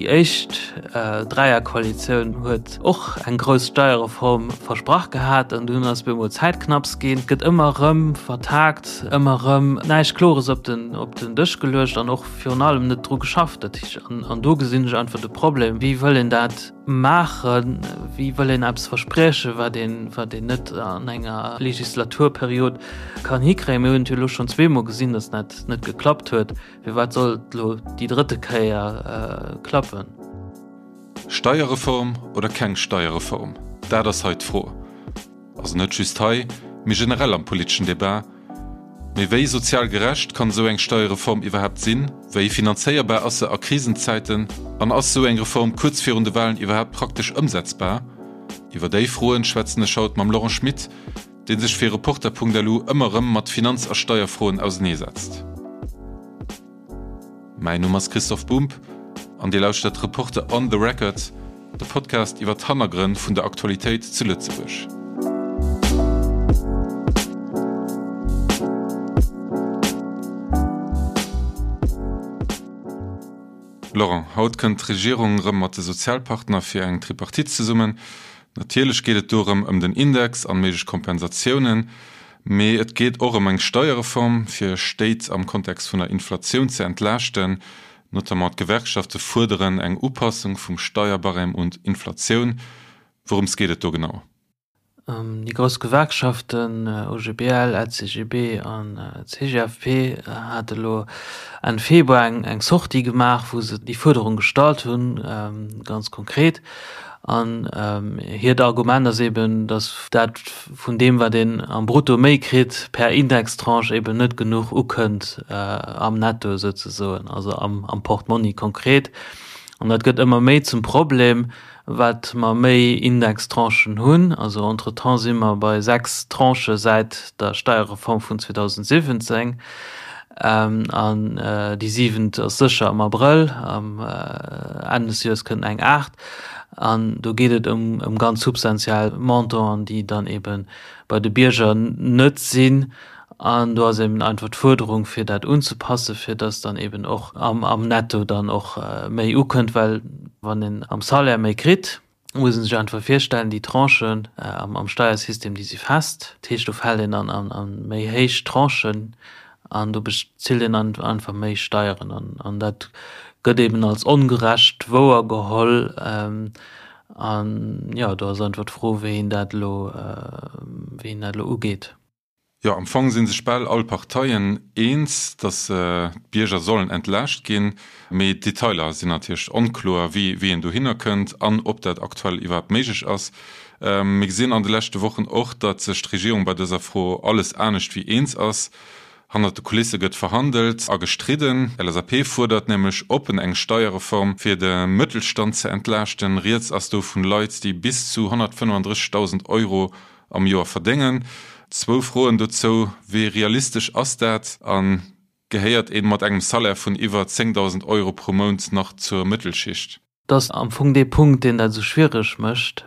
Déi éischt Dräierkoalitioun huet och eng grouss Steierreform versprach gehat an dunn ass bemol Zäitknapps ginn. Et gëtt ëmmer erëm vertagt, ëmmer erëm näischt Klores op den op den Dësch geluecht an och virun allem net dru geschafft. Dat heescht, an an do gesinn ech einfach de Problem, Wéi wëll een dat maachen? Wéi wëll een eppes verspriechen, wat een wat een net an enger Legislaturperiod kann hikréien? Mir hunn et jo elo schonn zweemol gesinn, datt dat net geklappt huet. Firwat soll et elo déi drëtte Kéier klappen? Steierreform oder keng Steierreform, dat ass hei d'Fro. Also net just hei, mee generell am politeschen Debat. Mee wéi sozial gerecht kann esou eng Steierreform iwwerhaapt sinn? Wéi finanzéierbar ass se a Krisenzäiten? An ass esou eng Reform kuerz virun de Walen iwwerhaapt praktesch ëmsetzbar? Iwwer déi Froen schwätzen ech haut mam Laurent Schmit, dee sech fir Reporter.lu ëmmer erëm mat Finanz a Steierfroen auseneesetzt. Mäin Numm ass Christoph Bumb an Dir lauschtert Reporter on the Record, de Podcast iwwer d'Hannergrënn vun der Aktualitéit zu Lëtzebuerg. Laurent, haut kënnt d'Regierung erëm mat de Sozialpartner fir eng Tripartite zesummen. Natierlech geet et do erëm ëm den Index an méiglech Kompensatiounen, mee et geet och ëm eng Steierreform, fir Stéit am Kontext vun der Inflatioun ze entlaaschten. Notamment d'Gewerkschafte fuerderen eng Upassung vum Steierbarème un d'Inflatioun. Wourëms geet et do genau? Déi grouss Gewerkschaften OGBL, LCGB an CGFP hate elo Enn Februar eng Sortie gemaach, wou se déi Fuerderung gestallt hunn, ganz konkret. An hiert Argument ass eben, datt dat vun deem, wat een am Brutto méi kritt, per Indextranche eben net genuch ukënnt am Netto souzesoen, also am Portmonni konkret. An dat gëtt ëmmer méi zum Problem, wat mer méi Indextranchen hunn, also entretemps si mer bei 6 Tranchë säit der Steierreform vun 2017, an déi siwent ass sécher am Abrëll, am Enn des Joers kënnt eng aacht, an do geet et ëm ganz substantiell Montanten, déi dann ebe bei de Bierger net sinn. An do ass eben einfach d'Fuerderung, fir dat unzepassen, fir dass dann eben och am Netto dann och méi ukënnt, well wann een am Salaire méi kritt, muss ee sech einfach virstellen, déi Tranchen am Steiersystem, déi si fest. Dat heescht, do fält een dann an méi héich Tranchen an do bezilt een einfach méi Steieren. An dat gëtt eben als ongerecht wouergeholl. An jo, do ass einfach d'Fro, wéi een dat elo, wéi een dat elo ugeet. Jo, am Fong si sech bal all Parteien eens, datt d'Bierger sollen entlaascht ginn. Mee d'Detailer sinn natierlech onkloer, wéi een dohinner kënnt an ob dat aktuell iwwerhaapt méiglech ass. Mir gesinn an de leschte Wochen och, datt sech d'Regierung bei dëser Fro alles anescht wéi eens ass. Hannert de Kulisse gëtt verhandelt a gestridden. LSAP fuerdert nämlech oppen eng Steierreform, fir de Mëttelstand ze entlaaschten. Rieds ass do vun Leit, déi bis zu 135.000 Euro am Joer verdéngen. Zwou Froen dozou, Wéi realistesch ass dat? A gehéiert ee mat engem Salaire vun iwwer 10.000 Euro pro Mount nach zur Mëttelschicht? Dat ass am Fong dee Punkt, deen dat esou schwiereg mécht.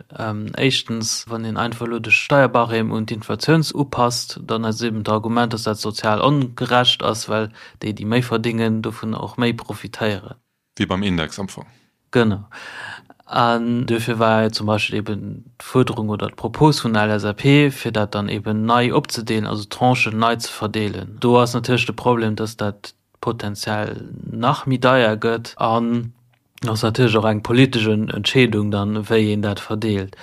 Éischtens, wann een einfach elo de Steierbarème un d'Inflatioun upasst, dann ass eben d'Argument, dass dat sozial ongerecht ass, well déi, déi méi verdéngen, dovun och méi profitéieren. Wéi beim Index am Fong. Genau. An duerfir war zum Beispill eben d'Fuerderung oder d'Propos vun der LSAP, fir dat dann eben nei opzedeelen, also d'Tranchen nei ze verdeelen. Do ass natierlech de Problem, dass dat potenziell nach méi deier gëtt. An ass natierlech och eng politesch Entscheedung dann, wéi een dat verdeelt.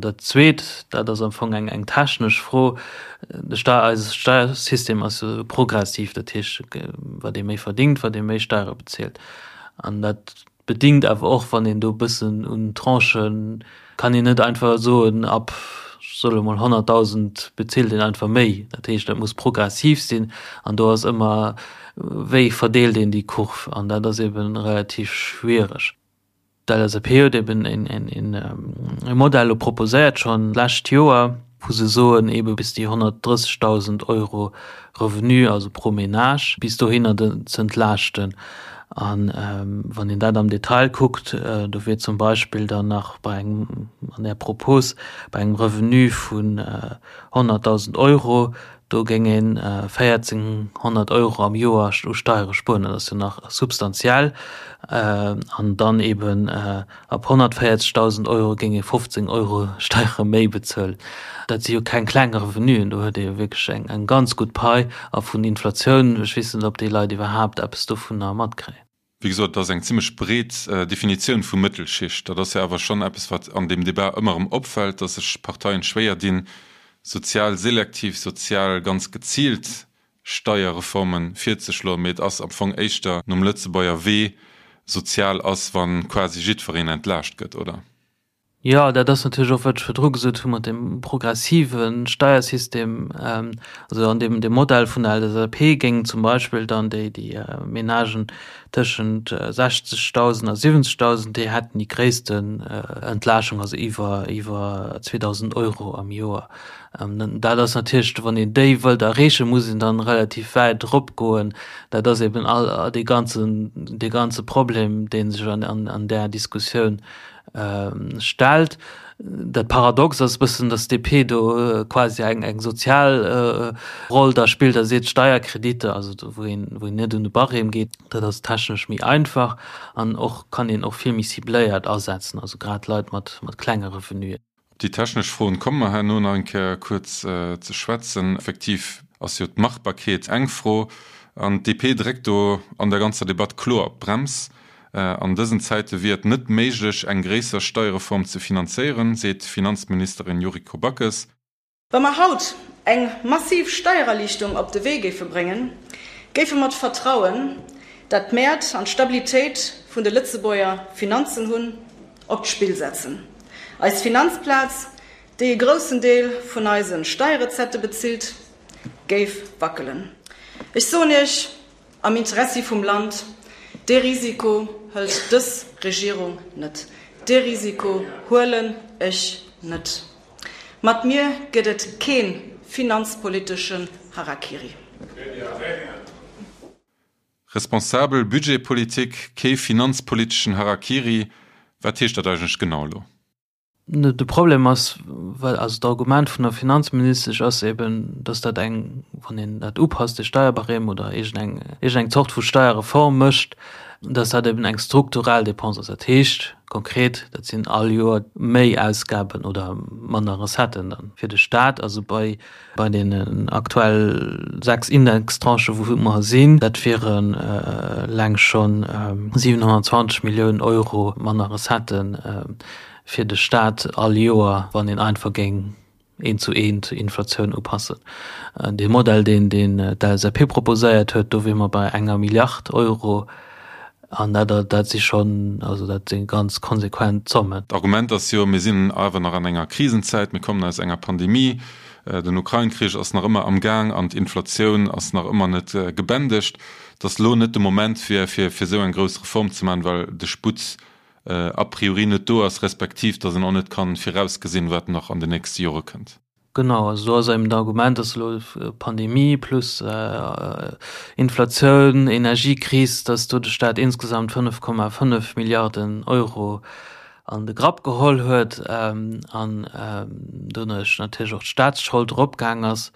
Dat Zweet, dat ass am Fong eng eng technesch Fro, de Stei-, eise Steiersystem ass jo progressiv, dat heescht, wat ee méi verdingt, wat ee méi Steiere bezilt. An dat bedingt awer och, wann een do e bëssen un Tranchen, kann een net einfach soen, ab, ech soe lo mol 100.000 bezilt een einfach méi. Dat heescht, dat muss progressiv sinn an do ass ëmmer, wéi verdeelt een déi Kurv? An dat ass eebe relativ schwiereg. D'LSAP huet eben e Modell elo proposéiert, schonn d'lescht Joer, wou se soen, ebe bis déi 130.000 Euro Revenu, also pro Ménage, bis dohinner ze entlaaschten. A wann een dat am Detail kuckt, do wier zum Beispill dann nach bei engem, an där Propos, bei engem Revenu vun 100.000 Euro. Do géing een 1.400 Euro am Joer u Steiere spueren. Dat ass jo nach substantiell. An dann eben ab 140.000 Euro géing ee 15 Euro Steiere méi bezuelen. Dat si jo keng kleng Revenuen. Do huet ee jo wierklech eng ganz gutt Pai. A vun Inflatioun, ech weess net, ob déi Leit iwwerhaapt eppes dovunner matkréien. Wéi gesot, et ass eng zimlech breet Definitioun vu Mëttelschicht. Dat ass jo awer schonn eppes, wat an deem Debat ëmmer erëm opfält, datt sech Parteien schwéier dinn, sozial selektiv, sozial ganz geziilt Steierreforme virzeschloen. Mee et ass am Fong éischter nom Lëtzebuerger Wee, sozial ass, wa quasi jiddwereen entlaascht gëtt, oder? Jo, dat ass natierlech och, wat ech virdru gesot hu mat deem progressive Steiersystem. Also an deem Modell vun der LSAP géingen zum Beispill dann déi, déi Menagen tëschent 60.000 a 70.000, déi hätten déi gréissten Entlaaschung, also iwwer, iwwer 2.000 Euro am Joer. Dat ass natierlech, wann een déi wëllt erreechen, muss een dann relativ wäit eropgoen. Dat ass eben all dee ganzen, dee ganze Problem, dee sech an, an där Diskussioun stellt. Dat Paradox ass e bëssen, datt d'DP do quasi eng eng sozial Roll da spillt a seet, Steierkreditter, also do wou een wou een net un de Barème geet, dat ass technesch méi einfach an och kann een och vill méi cibléiert asetzen, also grad Leit mat mat klenge Revenuen. Op déi technesch Froen komme mer herno nach eng Kéier kuerz ze schwätzen. Effektiv ass jo d'Machbarkeet eng Fro an d'DP dréckt do an der ganzer Debatt kloer op d'Brems. An dësen Zäite wier et net méiglech, eng gréisser Steierreform ze finanzéieren, seet d'Finanzministerin Yuriko Backes. Wa mer haut eng massiv Steiererliichtung op de Wee géife bréngen, géife mer d'Vertrauen, dat d'Mäert an d'Stabilitéit vun de Lëtzebuerger Finanzen hunn, op d'Spill setzen. Eis Finanzplaz, déi e groussen Deel vun eise Steierrecettë bezilt, géif wackelen. Ech soen Iech, Am Interessi vum Land, dee Risiko hëlt dës Regierung net. Dee Risiko huelen ech net. Mat mir gëtt et kee finanzpoliteschen Harakiri. Responsabel Budgetpolitik, kee finanzpoliteschen Harakiri, wat heescht dat eigentlech genau elo? De Problem ass, well also d'Argument vun der Finanzministesch ass eben, datt dat eng, wann een dat upasst, de Steierbarème oder iergendeng, iergendeng Zort vu Steierreform mécht, datt dat eben eng strukturell Dépense ass. Dat heescht konkret, dat sinn all Joer méi Ausgaben oder manner Recetten dann fir de Stat. Also bei, bei deenen aktuell 6 Indextranchen, wou mer sinn, dat wieren eleng schonn 720 Milliounen Euro manner Recetten fir de Staat all Joer, wann een einfach géing eent zu eent d'Inflatioun upassen. Dee Modell, deen d'LSAP proposéiert huet, do wier mer bei enger Milliard Euro. An dat, dat si schonn, also dat si ganz konsequent Zommen. D'Argument ass jo, mir sinn awer nach an enger Krisenzäit, mir kommen aus enger Pandemie, den Ukrain-Krich ass nach ëmmer am Gaang an d'Inflatioun ass nach ëmmer net gebändegt, datt elo net de Moment wier, fir esou eng grouss Reform ze maachen, well de Sputt a priori net do ass, respektiv datt een och net kann virausgesinn, wat nach an den nächste Jore kënnt. Genau, also do ass eben d'Argument, datt elo Pandemie plus Inflatioun, Energiekris, datt do de Staat insgesamt 5,5 Milliarden Euro an de Grapp geholl huet an doduerch natierlech och d'Staatsschold eropgaang ass.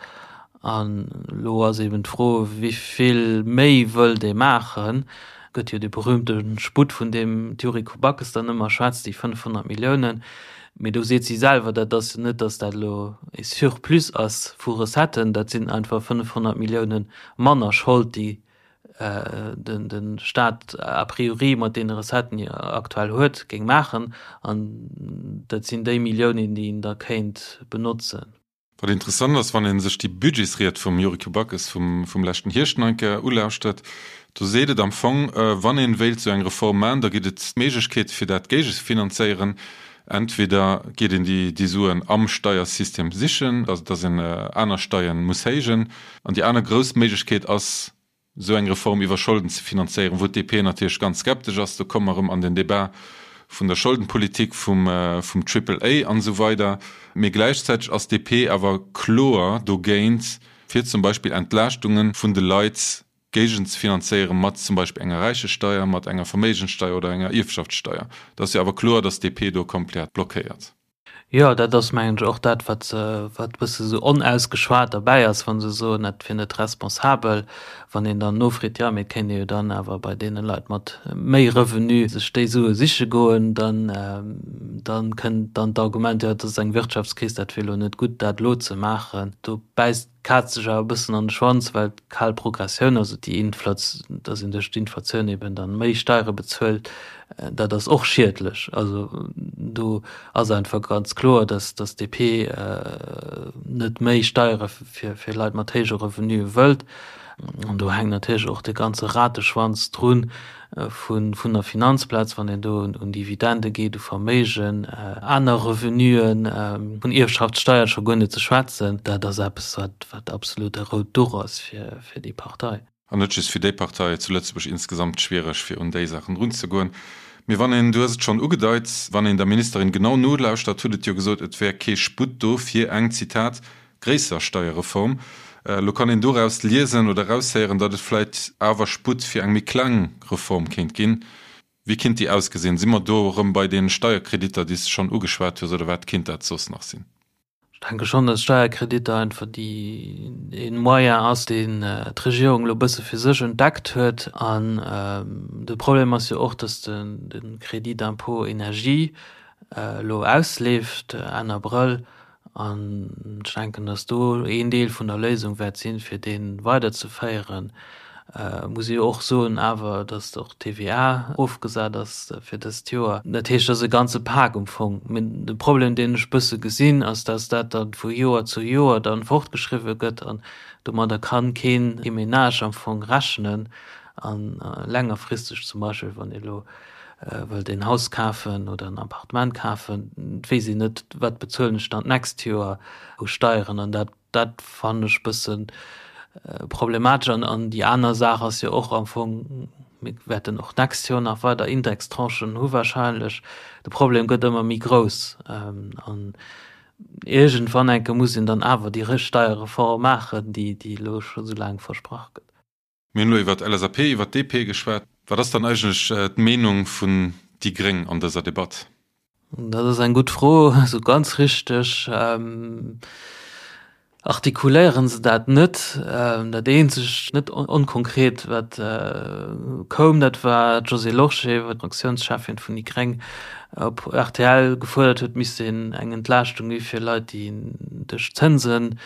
An elo ass eben d'Fro, wéi vill méi wëllt ee maachen? Gëtt jo dee berühmte Sputt, vun deem d'Yuriko Backes dann ëmmer schwätzt, déi 500 Milliounen. Mee do seet si selwer, dat ass jo net, datt dat elo e Surplus ass vu Recetten, dat sinn einfach 500 Millioune manner Schold, déi de Staat a priori mat deene Recetten, déi e aktuell huet, géing maachen. An dat sinn déi Milliounen, déi een da kéint benotzen. Wat interessant ass, wann ee sech déi Budgetsried vum Yuriko Backes vum leschten Hierscht nach eng Kéier ulauschtert, do seet et am Fong, wann ee wéilt esou eng Reform maachen, da gëtt et Méiglechkeete fir dat géigezefinanzéieren. Entweder geet een déi Suen am Steiersystem sichen, also datt een aner Steieren muss héijen, an déi aner grouss Méiglechkeet ass, esou eng Reform iwwer Scholden ze finanzéieren, wou d'DP natierlech ganz skeptesch ass. Do komme mer erëm an den Débat vun der Scholdenpolitik, vum Triple A an esou weider. Mee gläichzäiteg ass d'DP awer kloer dogéint, fir zum Beispill Entlaaschtunge vun de Leit géigenzefinanzéieren, mat zum Beispill enger Räichesteier, mat enger Verméigenssteier oder enger Ierfschaftssteier. Et ass jo awer kloer, datt d'DP do komplett blockéiert. Jo, dat ass mengen ech och dat, wat wat e bësse sou onausgeschwat derbäi ass, wa se soen, dat wier net responsabel. Wann een dann nofreet, jo, mee et kéint ee jo dann awer bei deene Leit mat méi Revenu sech déi Sue siche goen, dann dann kënnt dann d'Argument, jo, et ass eng Wirtschaftskris, dat wier elo net gutt, dat elo ze maachen. Do bäisst d'Kaz sech awer e bëssen an de Schwanz, well d'kal Progressioun, also déi Inflats, dass een duerch d'Inflatioun eben dann méi Steiere bezuelt, dat ass och schiedlech. Also do ass einfach ganz kloer, dass dass d'DP net méi Steiere fir fir Leit mat héije Revenue wëllt. An do hänkt natierlech och de ganze Rateschwanz drun vun vun der Finanzplaz, wann een do un Dividende geet, u Verméigen, aner Revenuen, vun Ierfschaftssteier scho guer net ze schwätzen. Dat ass eppes, wat wat absolut e rout Duch ass fir fir déi Partei. An net just fir déi Partei, zu Lëtzebuerg insgesamt schwiereg, fir un déi Saachen erunzegoen. Mee wann een, du hues et schonn ugedeit, wann een der Ministerin genau nolauschtert, huet et jo gesot, et wär kee Sputt do fir eng, Zitat, gréisser Steierreform. Elo kann een doraus liesen oder eraushéieren, datt et vläit awer Sputt fir eng méi kleng Reform kéint ginn. Wéi kinnt déi ausgesinn? Si mer do erëm bei deene Steierkreditter, déi s de schonn ugeschwat hues, oder wat kinnt dat soss nach sinn? Ech denke schonn, datt Steierkreditter einfach déi ee Moyen ass, deen d'Regierung elo e bësse fir sech entdeckt huet. An de Problem ass jo och, datt de Crédit d'impôt énergie elo ausleeft Enn Abrëll An ech denken, datt do een Deel vun der Léisung wäert sinn, fir dee weiderzeféieren. Muss ee jo och soen awer, datt och d'TVA erofgesat ass fir dëst Joer. Dat heescht, et ass e ganze Pak um Fong. Mee de Problem, deen ech e bësse gesinn, ass, datt dat da vu Joer zu Joer dann fortgeschriwwe gëtt an domadder kann keen Menage am Fong rechnen. A längerfristeg zum Beispill, wann ee elo wëllt een Haus kafen oder en Appartement kafen, et weess een net, wat bezuelen ech dann d'nächst Joer u Steieren. An dat, dat fannen ech e bësse problematesch. An, an déi aner Saach ass jo och am Fong, mir wäerten och d'nächst Joer nach weider Indextranchen hu wahrscheinlech, de Problem gëtt ëmmer méi grouss. An iergendwann enke muss een dann awer déi Steierreform maachen, déi, déi elo scho sou laang versprach gëtt. Mir hunn elo iwwer d'LSAP, iwwer d'DP geschwat. Wat ass dann eigentlech d'Meenung vun déi Gréng an dëser Debatt? Dat ass eng gutt Fro. Esou ganz richteg artikuléiere se dat net. Dat eenzegt net onkonkret, wat koum, dat war d'Josée Lorsché, d'Fraktiounscheffin vun déi Gréng, op rtl gefuerdert huet, et misst een eng Entlaaschtung gi fir Leit, déi duerch d'Zënsen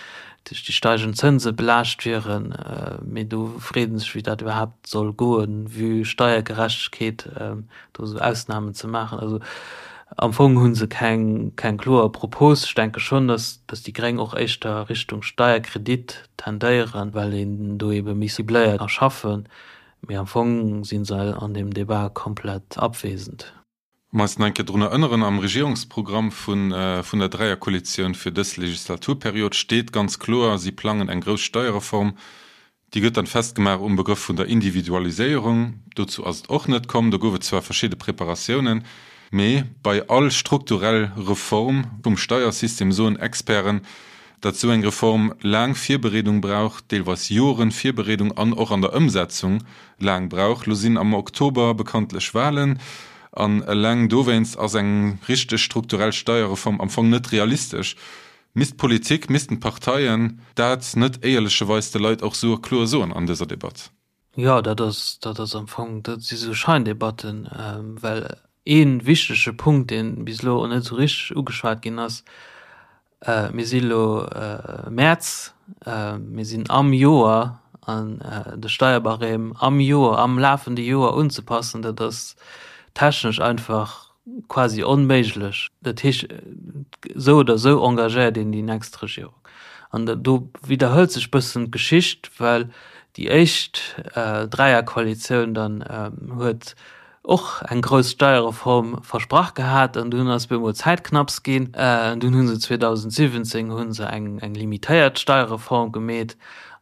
duerch déi steigend Zënse belaascht wieren, mee do freet ee sech, wéi dat iwwerhaapt soll goen, vue Steiergerechtegkeet, do esou Ausnamen ze maachen. Also am Fong hu se keng, keng kloer Propos. Ech denke schonn, datt, datt déi Gréng och éischter Richtung Steierkredit tendéieren, well een do ebe méi cibléiert ka schaffen, mee am Fong si se an deem Debat komplett abwesend. Um eis nach eng Kéier drun erënneren, Am Regierungsprogramm vun vun der Dräierkoalitioun fir dës Legislaturperiod steet ganz kloer, si plangen eng grouss Steierreform. Déi gëtt dann festgemaach um Begrëff vun der Individualiséierung. Dozou ass et och net komm. Do gouf et zwar verschidde Preparatiounen, mee bei all strukturell Reform vum Steiersystem soen Experten, datt esou eng Reform laang Virbereedung brauch, deelweis Joren Virbereedung an och an der Ëmsetzung laang brauch. Lo sinn am Oktober bekanntlech Wahlen an eleng dowéinst ass eng richteg strukturell Steierreform am Fong net realistesch. Misst d'Politik, missten d'Parteien dat net éierlecheweis de Leit och sou kloer soen an dëser Debatt? Jo, dat ass, dat ass am Fong, dat si sou Scheindebatten, well ee wichtege Punkt, dee bis elo och net esou richteg ugeschwat ginn ass, Mir si elo Mäerz, mir sinn am Joer an de Steierbarème am Joer, am lafende Joer unzepassen, dat ass technesch einfach quasi onméiglech. Dat heescht, esou oder esou engagéiert een déi nächst Regierung. An do widderhëlt sech bëssen d'Geschicht, well déi éischt Dräierkoalitioun dann huet och eng grouss Steierreform versprach gehat an dunn ass bemol Zäitknapps ginn. Dunn hu se 2017 hu se eng eng limitéiert Steierreform gemeet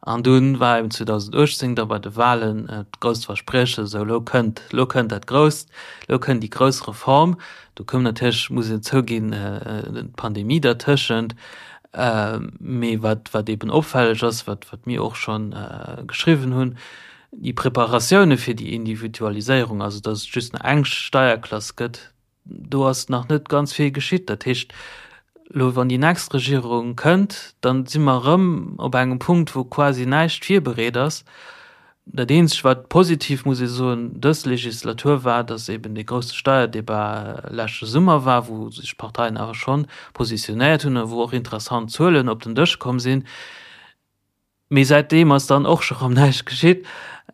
an dunn war eben 2018 da bei de Wahlen d'grousst Versprieche, sou lo kënnt, lo kënnt dat Grousst, lo kënnt déi grouss Reform. Do koum natierlech, muss een zouginn, d'Pandemie dertëschent. Mee wat wat eben opfälleg ass, wat wat mir och schonn geschriwwen hunn, Déi Preparatioune fir déi Individualiséierung, also datt et just nach eng Steierklass gëtt, do ass nach net ganz vill geschitt. Dat heescht, Elo wann déi nächst Regierung kënnt, dann si mer erëm op engem Punkt, wou quasi näischt virbereet ass. Dat eenzegt wat positiv, muss ee soen, dës Legislatur war, datt eben dee grousse Steierdebat leschte Summer war, wou sech d'Parteien awer schonn positionéiert hunn a wou och interessant Zuelen op den Dësch komm sinn. Mee säitdeem ass dann och scho rëm näischt geschitt.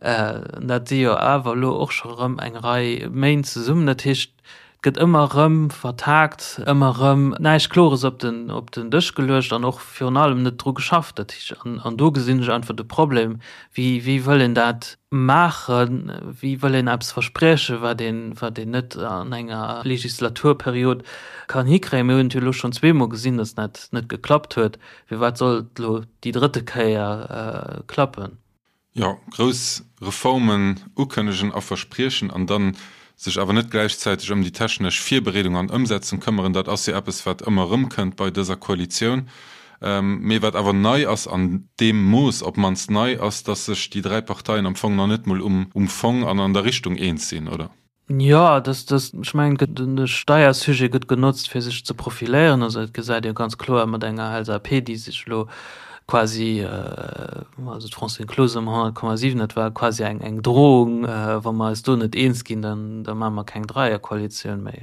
Dat si jo awer elo och scho rëm eng Rei Méint zesummen. Dat heescht, et gëtt ëmmer rëm vertagt, ëmmer rëm näischt Klores op den, op den Dësch geluecht an och virun allem net dru geschafft. Dat heescht, an, an do gesinn ech einfach de Problem, Wéi, wéi wëll een dat maachen? Wéi wëll een eppes verspriechen, wat een, wat een net an enger Legislaturperiod kann hikréien? Mir hunn et jo elo schonn zweemol gesinn, datt dat net geklappt huet. Firwat soll et elo déi drëtte Kéier klappen? Jo, grouss Reformen ukënnegen a verspriechen an dann sech awer net gläichzäiteg ëm déi technesch Virbereedung an Ëmsetzung këmmeren, dat ass jo eppes, wat ëmmer erëmkënnt bei dëser Koalitioun. Mee wat awer nei ass, an deem Mooss op d'mannst nei ass, datt sech déi 3 Parteien am Fong nach net mol um Fong an an der Richtung eens sinn, oder? Jo, dass, dass, ech mengen, et gëtt, de Steiersujet gëtt genotzt, fir sech ze profiléieren. Also dat gesäit ee jo ganz kloer mat enger LSAP, déi sech elo quasi, also d'Francine Closener um 100,7, dat war quasi eng, eng Drohung, wa mer eis do net eens ginn, dann, da maache mer keng Dreierkoalitioun méi.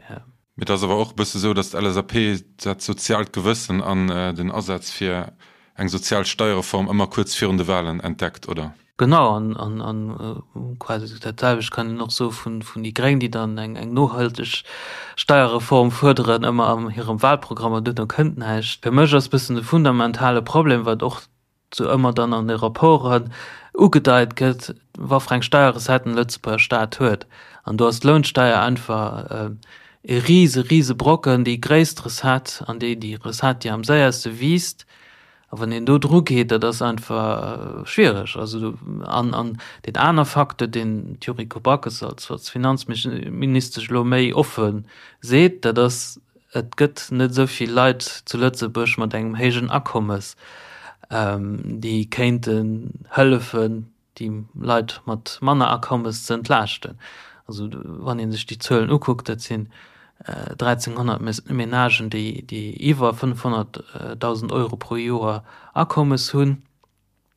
Mee et ass awer och e bësse sou, datt d'LSAP dat soziaalt Gewëssen an den Asaz fir eng sozial Steierreform ëmmer kuerz virun de Walen entdeckt, oder? Genau, an quasi dat selwecht kann een och soe vun déi Gréng, déi dann eng nohalteg Steierreform fuerderen, ëmmer an hirem Wahlprogramm, an duerno kënnt näischt. Fir mech ass e bëssen de fundamentale Problem, wat och sou ëmmer dann an de Rapporten ugedeit gëtt, waffer eng Steierrecetten de Lëtzebuerger Staat huet. An do ass d'Lounsteier einfach e rise, rise Brocken, déi gréisst Recette an déi, déi Recette, déi am séierste wiisst. A wann een do dru geet, dat ass einfach schwiereg. Also, an, an deen aner Facteur, deen d'Yuriko Backes als, als Finanzministesch elo méi offe seet, dat ass, Et gëtt net esou vill Leit zu Lëtzebuerg mat engem héijen Akommes, déi kéinten hëllefen, déi Leit mat manner Akommes ze entlaaschten. Also wann ee sech déi Zuelen ukuckt, dat sinn 1.300 Menagen, déi iwwer 500.000 Euro pro Joer Akommes hunn.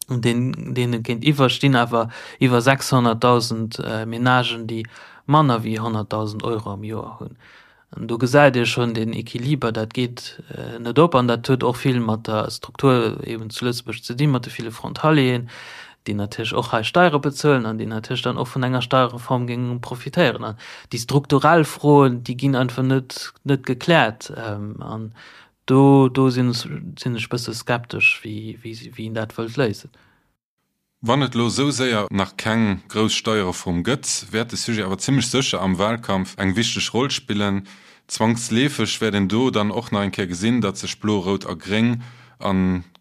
Deene géintiwwer stinn awer iwwer 600.000 Menagen, déi manner wéi 100.000 Euro am Joer hunn. An do gesäit ee schonn deen Equiliber, dat geet net op. An dat huet och vill mat der Struktur eeben zu Lëtzebuerg ze dinn, mat de ville Frontalieren, déi natierlech och hei Steiere bezuelen an déi natierlech dann och vun enger Steierreform géinge profitéieren. An déi strukturell Froen, déi ginn einfach net, net gekläert. An Do do sinn sinn ech bësse skeptesch, wéi wéi wéi een dat wëllt léisen. Wann et elo esou séier nach keng grouss Steierreform gëtt, wäert de Sujet awer zimmlech sécher am Wahlkampf eng wichteg Roll spillen. Zwangsleefeg wäert een do dann och nach eng Kéier gesinn, datt sech Blo, Rout a Gréng a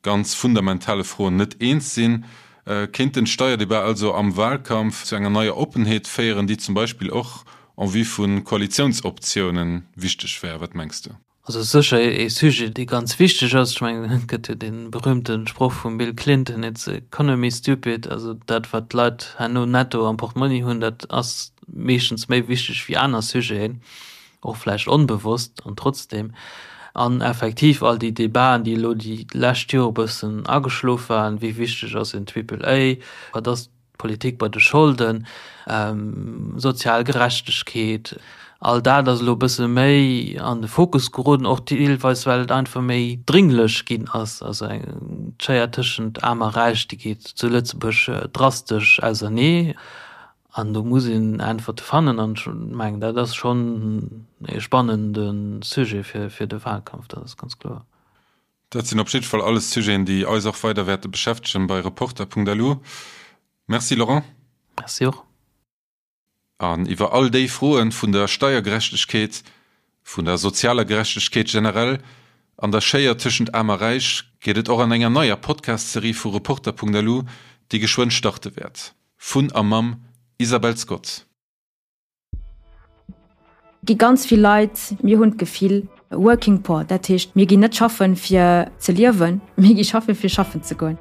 ganz fundamentale Froen net eens sinn. Kéint den Steierdebat also am Wahlkampf zu enger neier Oppenheet féieren, déi zum Beispill och en vue vu Koalitiounsoptiounen wichteg wär? Wat mengs du? Also sécher ee Sujet, dee ganz wichteg ass. Ech mengen, et gëtt jo dee berühmte Sproch vum Bill Clinton, It's the economy, stupid. Also dat, wat d'Leit herno netto am Portmonni hunn, dat ass meeschtens méi wichteg wéi aner Sujeten, och vläicht onbewosst an trotzdem. An effektiv all déi Debaten, déi elo déi lescht Jore bëssen ageschlof waren, wéi wichteg ass en Triple A, wat ass Politik bei de Scholden, sozial Gerechtegkeet, all dat ass elo e bësse méi an de Fokus geroden, och deelweis well et einfach méi dringlech ginn ass. Also eng d'Schéier tëschent Aarm a Räich, déi geet zu Lëtzebuerg drastesch ausernee an do muss een Äntwerte fannen an ech mengen, dat ass schonn e spannende Sujet fir de Wahlkampf, dat ass ganz kloer. Dat sinn op jiddwer Fall alles Sujeten, déi eis och weider wäerte beschäftegen bei Reporter.lu. Merci Laurent. Merci och. An iwwer all déi Froen vun der Steiergerechtegkeet, vun der sozialer Gerechtegkeet generell an der Schéier tëschent Aarm a Räich geet et och an enger neier Podcast-Serie vu Reporter.lu, déi geschwënn starte wäert. Vun a mam Isabelle Scott. Gi ganz vill Leit, mir hunn d'Gefill, working poor, dat heescht, mir ginn net schaffen, fir ze liewen, mir gi schaffen, fir schaffen ze goen.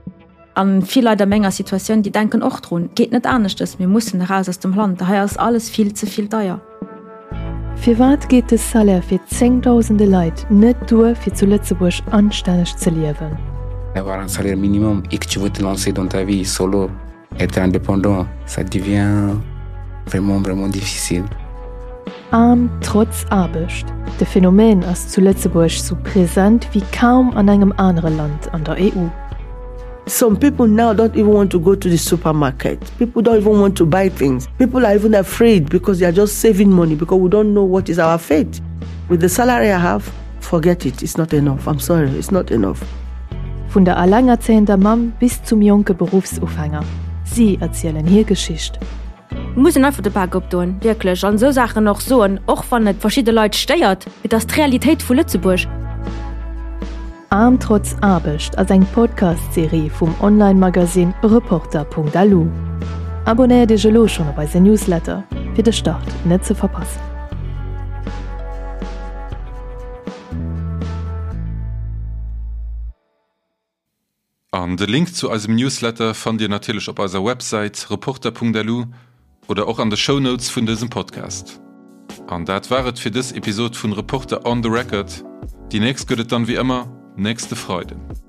A vill Leit a menger Situatioun, déi denken och drun, et geet net aneschtes, mir mussen eraus aus dem Land, hei ass alles vill ze vill deier. Firwat geet de Salaire fir zéngdausende Leit net duer fir zu Lëtzebuerg anstänneg ze liewen? Avoir un salaire minimum et que tu veux te lancer dans ta vie solo, être indépendant, ça devient vraiment vraiment difficile. Aarm trotz Aarbecht, de Phänomen ass zu Lëtzebuerg sou present wéi kaum an engem anere Land an der EU. Some people now don't even want to go to the supermarket. People don't even want to buy things. People are even afraid because they are just saving money because we don't know what is our fate. With the salary I have, forget it. It's not enough. I'm sorry, it's not enough. Vun der allengerzéiender Mamm bis zum jonke Beruffsufänger, si erzielen hir Geschicht. Et muss een einfach de Bak opdoen, wierklech, an esou Saachen och soen, och wann et verschidde Leit stéiert. Et ass d'Realitéit vu Lëtzebuerg. Aarm trotz Aarbecht ass eng Podcast-Serie vum Online-Magasinn Reporter.lu. Abonnéiert Iech elo schonn op eise Newsletter, fir de Start net ze verpassen. An de Link zu eisem Newsletter fannt Dir natierlech op eiser Websäit reporter.lu oder och an de Shownotes vun dësem Podcast. An dat war et fir dës Episod vun Reporter on the Record. Déi nächst gëtt et dann wéi ëmmer nächste Freiden.